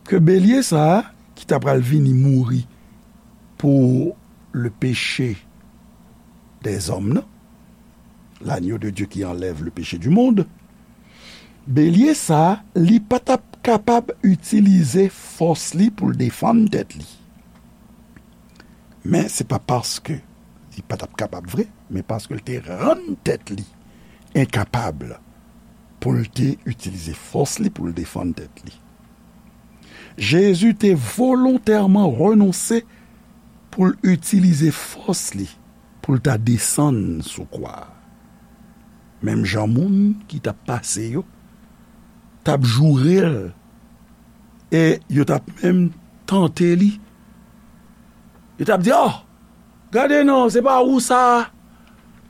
ke belye sa a, ki ta pral vini mouri pou le péché des hommes, non? L'agneau de Dieu qui enlève le péché du monde. Belye sa a, li pa t ap kapab itilize fòs li pou l defann tèt li. Men se pa paske li pa t ap kapab vre, men paske l te rann tèt li enkapab pou l te itilize fòs li pou l defann tèt li. Jezi te volontèman renonse pou l itilize fòs li pou l ta desann sou kwa a. Menm jan moun ki t ap pase yo t ap joure l e yo t ap menm tante li. Yo t ap di, "Oh, gade non, se pa ou sa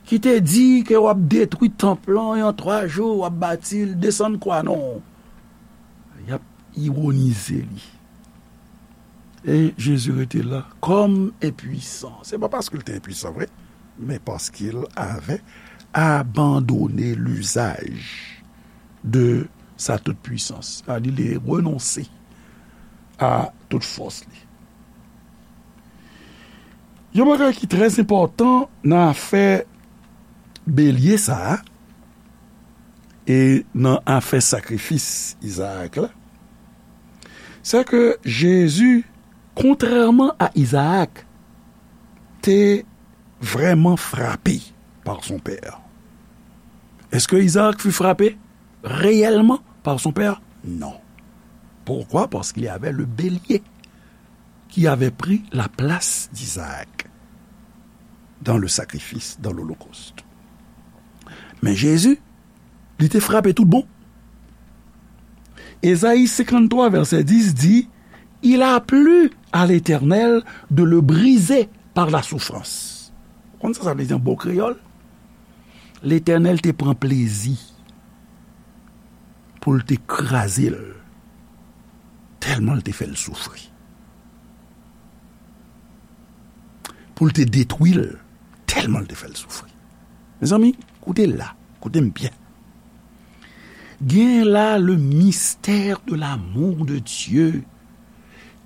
ki te di ke w ap detwi tanp lan e an twa jou w ap bati l, desann kwa non." Y ap iwonize li. E Jezi rete la kòm enpwisan. Se pa paske l te enpwisan vre, men paske l avè abandone lizaj de sa tout pwisans. Sa di li renonse a tout fòs li. Yon bagay ki trè enpòtan nan afè belye sa a, e nan afè sakrifis Izaak la, se ke Jezi, kontrèman a Izaak, te vraiment frappé par son père. Est-ce que Isaac fut frappé réellement par son père? Non. Pourquoi? Parce qu'il y avait le bélier qui avait pris la place d'Isaac dans le sacrifice, dans l'holocauste. Men Jezi, li te frape tout bon. Ezayi senkanntwa, vèsè dis di, "Il a plu à l'Éternel de le briser par la souffrance." Ou konn sa sa vle di an bon kreyòl? Letènèl te pran plezi pou l te kraze l, tèlman l te fè l soufri. Pou l te detwi l, tèlman l te fè l soufri. Mezanmi, koute la, koute m byen. Gen la le mystère de l'amour de Dieu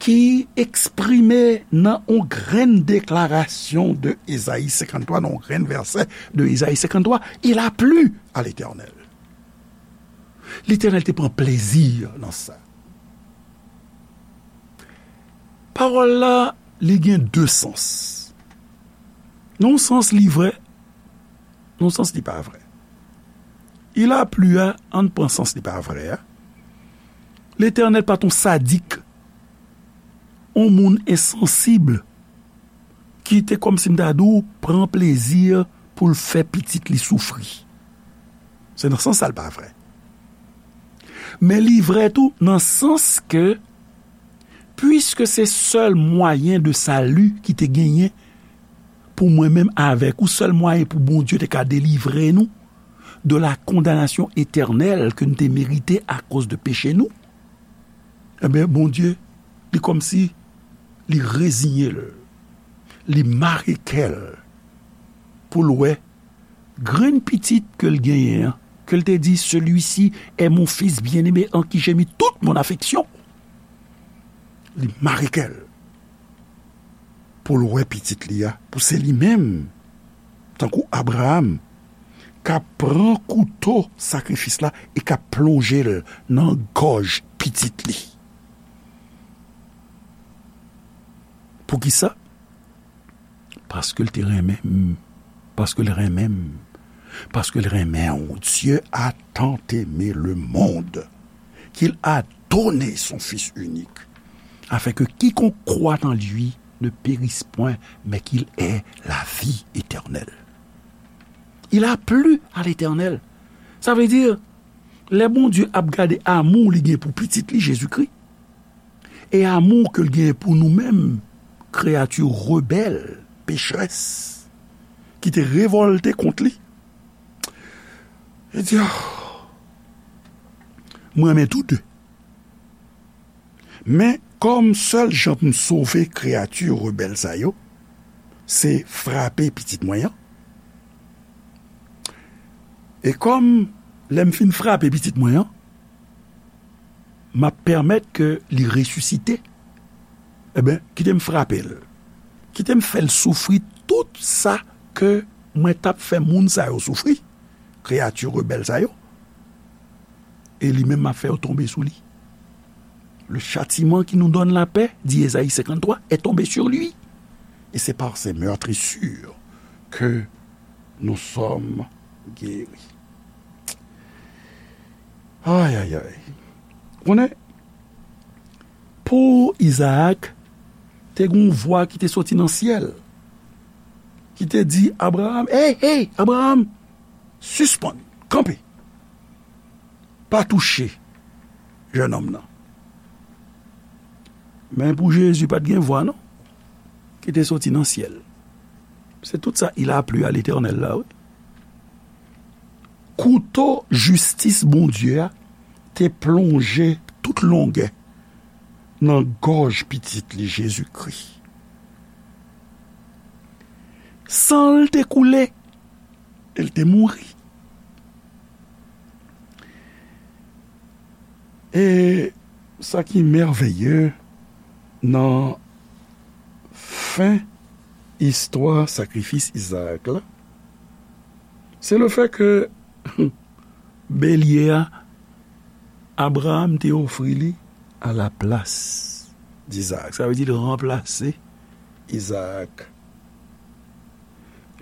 ki eksprime nan yon grenn deklarasyon de Ezayi senkanntwa, nan yon grenn vèsè de Ezayi senkanntwa, il a plu à l'Éternel. Letènèl te pran plezi nan sa. Pawòl la, li gen de sans. Nan yon sans, li vrè, nan yon sans, li pa vrè. Il a plu a, ann pran sans li pa vrè a. Letènèl pa t on sadik, on moun ensansib, ki te kòmsi m ta di w pran plezi pou l fè pitit li soufri. Se nan sans sa l pa vrè. Men li vrè tou nan sans ke, piske se sèl mwayen de sali ki te genyen pou mwen menm avèk ou, sèl mwayen pou Bondye te ka delivre nou de la condamnation éternelle ke nou te merite akoz de peche nou, ebyen, Bondye, li kòmsi li reziye l, li mare kè l pou l wè grenn pitit ke l genyen an, ke l te di, "Celui-ci est mon fils bien-aimé en qui j'ai mis toute mon affection." Li mare kè l pou l wè pitit li a, pou se li menm, tankou Abraram, k ap pran kouto sakrifis la e k ap plonje l nan gòj pitit li. Poukisa? Paske l te renmen m. Paske l renmen m. Paske l renmen w. Dieu a tant aimé le monde qu'il a donné son Fils unique, afin que quiconque croit en lui ne périsse point, mais qu'il ait la vie éternelle. Il a plu à l'Éternel. Sa vle di, lè Bondye ap gade amou li gen pou pitit li, Jezikri, e amou ke l genyen pou nou menm, kreyati rebèl, pechrès, ki te revòlte kont li, li di, "Oh, mwen renmen tou de. Men kòm sèl jan pou m sove kreyati rebèl sa yo, se frape pitit mwen an." E kòm Lè m fin frape pitit mwen an, m ap pèmèt ke li resisite. Ebyen, kite m frape l. Kite m fè l soufri tout sa ke mwen t ap fè moun sa yo soufri, kreyati rebèl sa yo. E li menm, m ap fè yo tonbe sou li. Le châtiment qui nous donne la paix, dit Ésaïe cinquante-trois, est tombé sur lui. Et c'est par ses meurtrissures que nous sommes guéris. Ay, ay, ay. Konnen, pou Izaak, te gen yon vwa ki te soti nan syèl, ki te di Abraram, "Hey, hey, Abraram, sispann, kanpe. Pa touche jennonm nan." Men pou Jezi, pa t gen vwa, non, ki te soti nan syèl. Se tout sa, "Il a plu à l'Éternel" la, wi. Kouto jistis Bondye a te plonje tout longè nan gòj pitit li Jezikri. San l te koule, e l te mouri. E sa ki mèveye nan fen istwa sakrifis Izaak la, se le fè ke belye a, Abraram te ofri li a la plas di Izaak. Sa vle di l ranplase Izaak.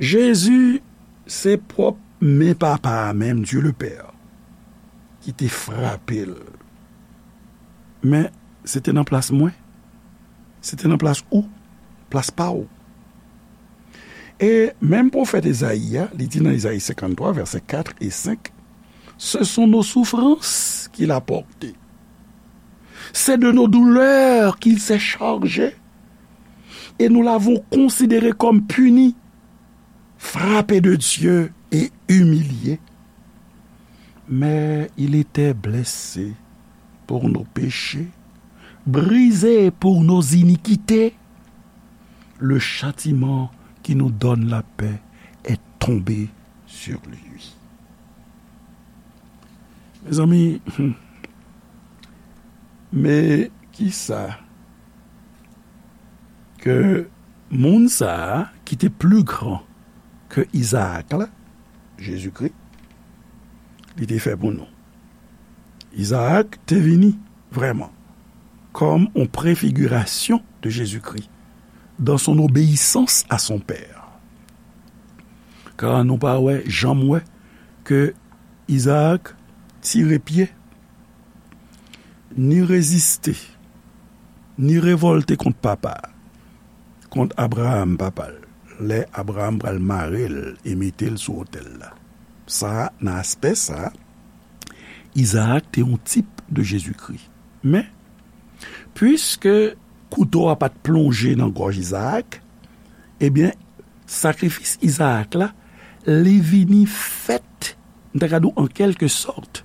Jezi, se pwòp men Papa a menm, Dye le Pè, ki te frape l. Men, se te nan plas mwen. Se te nan plas ou, plas pa w. E menm pwofèt Ezayi a, li di nan Ezayi senkanntwa, vèsè kat e senk, "Ce sont nos souffrances qu'il a portées. C'est de nos douleurs qu'il s'est chargé. Et nous l'avons considéré comme puni, frappé de Dieu et humilié. Mais il était blessé pour nos péchés, brisé pour nos iniquités. Le châtiment qui nous donne la paix est tombé sur lui." Mezanmi, men kisa ke moun sa a ki te pli gran ke Izaak la, Jezikri, li te fè pou nou. Izaak te vini vrèman kòm yon prefigirasyon de Jezikri dans son obéissance à son père. Ka nou pa wè, janm wè ke Izaak tire pye, ni reziste, ni revòlte kont papa, kont Abraram, papa l, lè Abraram pral mare l e mete l sou otèl la. Sa, nan aspè sa, Izaak te yon tip de Jezikri. Men, piske kouto a pa t plonje nan gòj Izaak, ebyen, sakrifis Izaak la, li vini fèt, m ta ka di w, an kèlke sòt,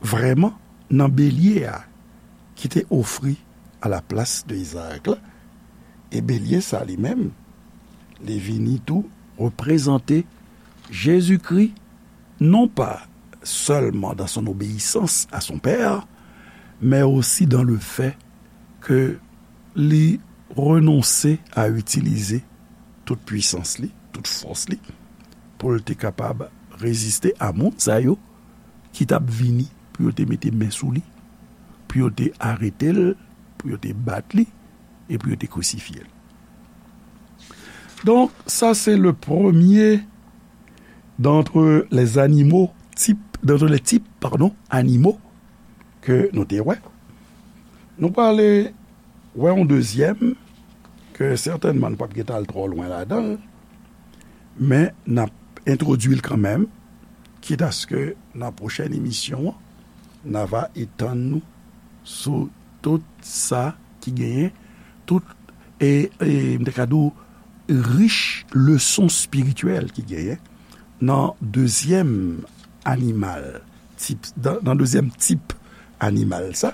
vrèman, nan belye a ki te ofri a la plas de Izaak la. E belye sa li menm, li vini tou reprezante Jezikri, non pa sèlman dans son obéissance à son père, mais aussi dans le fait ke li renonse a itilize tout pwisans li, tout fòs li, pou l te kapab reziste a moun sa yo ki t ap vini pou yo te mete men sou li, pou yo te arete l, pou yo te bat li, e pou yo te krisifye l. Donc, ça c'est le premier d'entre les animaux, type, d'entre les types, pardon, animaux ke nou te wè. Nou prale wè yon dezyèm, ke sètènman nou p ap gen tan al twò lwen ladan l, men n ap entwodui l kanmenm, kit aske nan pwochèn emisyon an, n a va etann nou sou tout sa ki genyen, tout, e, e, m te ka di w, rich leson espirityèl ki genyen nan dezyèm animal, tip, nan, nan dezyèm tip animal sa.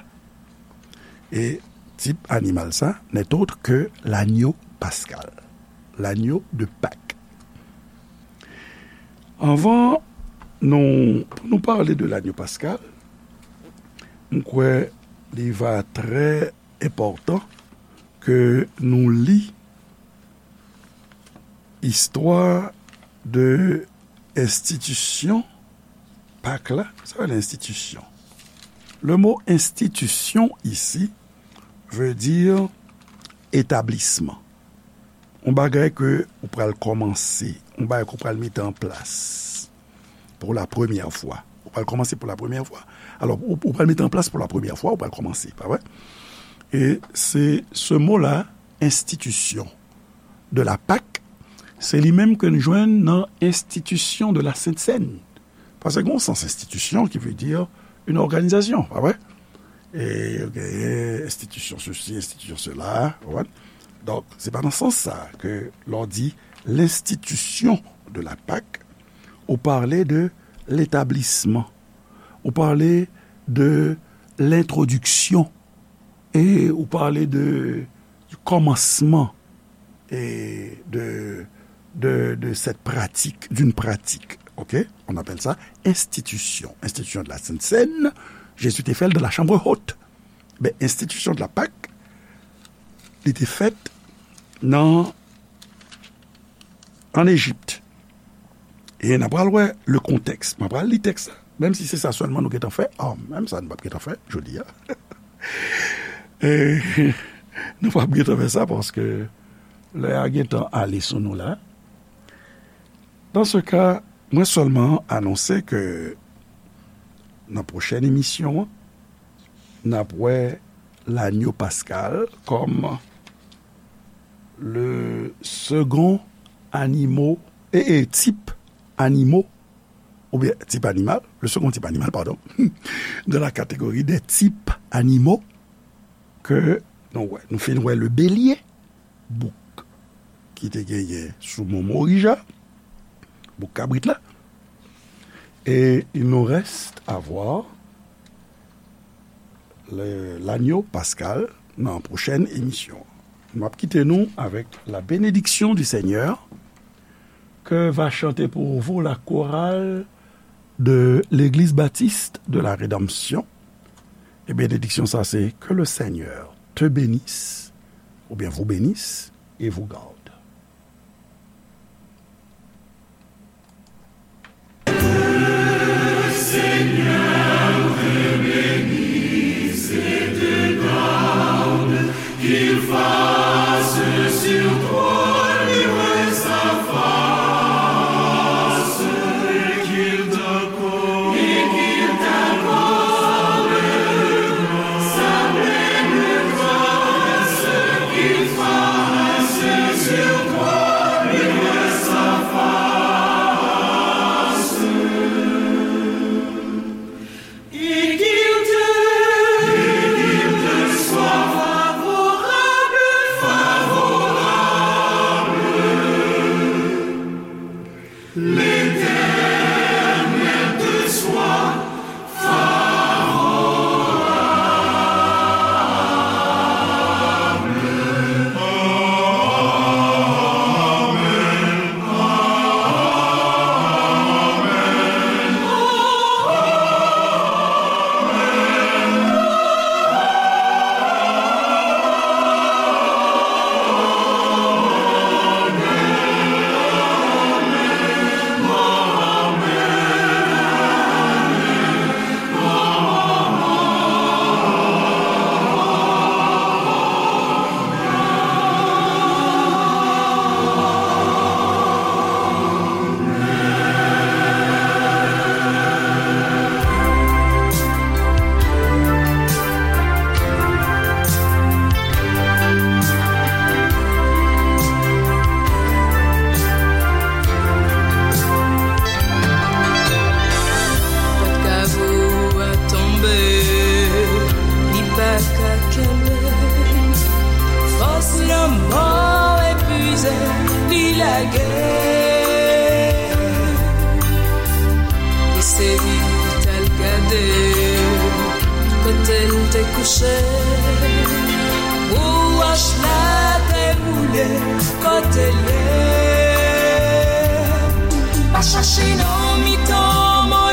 E tip animal sa n'est autre que l'agneau pascal, l'agneau de Pâques. Anvan Nou, pou nou pale de lanyo paskal, m kwè li va trè enpòtan ke nou li istwa de enstitisyon Pak la. Sa vle enstitisyon. Le mo enstitisyon isi veut dire établissement. Yon bagay ke ou pral kòmanse, yon bagay ke ou pral mete an plas pour la première fois. Ou pral kòmanse pour la première fois. Alò, ou, ou pral mete an plas pour la première fois, ou pral kòmanse, pa vre? E se, se mo la, enstitisyon de la Pak, se li menm ke n jwenn nan enstitisyon de la Sent Sèn. Paske gen yon sans enstitisyon ki vle di yon òganizasyon, pa vre? E yo genyen enstitisyon sesi, enstitisyon sela, ou konprann? Donk, se pa nan sans sa ke lè w di l'institution de la Pak, ou pale de l'établissement, ou pale de l'introduction, e ou pale de, du commencement et de, de, de cette pratique, d'une pratique, ok? On appelle ça institution, institution de la Sainte Seine. Jezi te fè l dans la chambre haute. Ben, institution de la Pâque, li te fèt nan, an Ejip. E n a pral wè le contexte. M a pral li tèks la. Menm si se sa sèlman nou gentan fè, oh, menm sa nou p ap gentan fè jodi a. E nou p ap gentan fè sa paske lè a gentan ale sou nou la. Dans ce cas, mwen sèlman anonse ke nan pwochèn emisyon an, n ap wè lanyo paskal kòm le second animo, e, e, tip animo, oubyen tip animal, le second type animal, pardon, dans la catégorie des types animaux ke nou wè. Nou fin wè le bélier, bouk ki te genyen sou Mont Morija, bouk kabrit la. Et il nous reste à voir le, l'agneau pascal nan pwochèn emisyon. M ap kite nou avec la bénédiction du Seigneur que va chanter pour vous la chorale de l'Église Baptiste de la Rédemption. E benediksyon sa se: Que le Seigneur te bénisse, oubyen vous bénisse et vous garde. Pòt kavo a tonbe, li pa ka kenbe. Fòs lanmò epuize, li lage. Li sezi, t al gade kote l te kouche. Pou wòch la te boule kote l ye. Chache nan mitan mò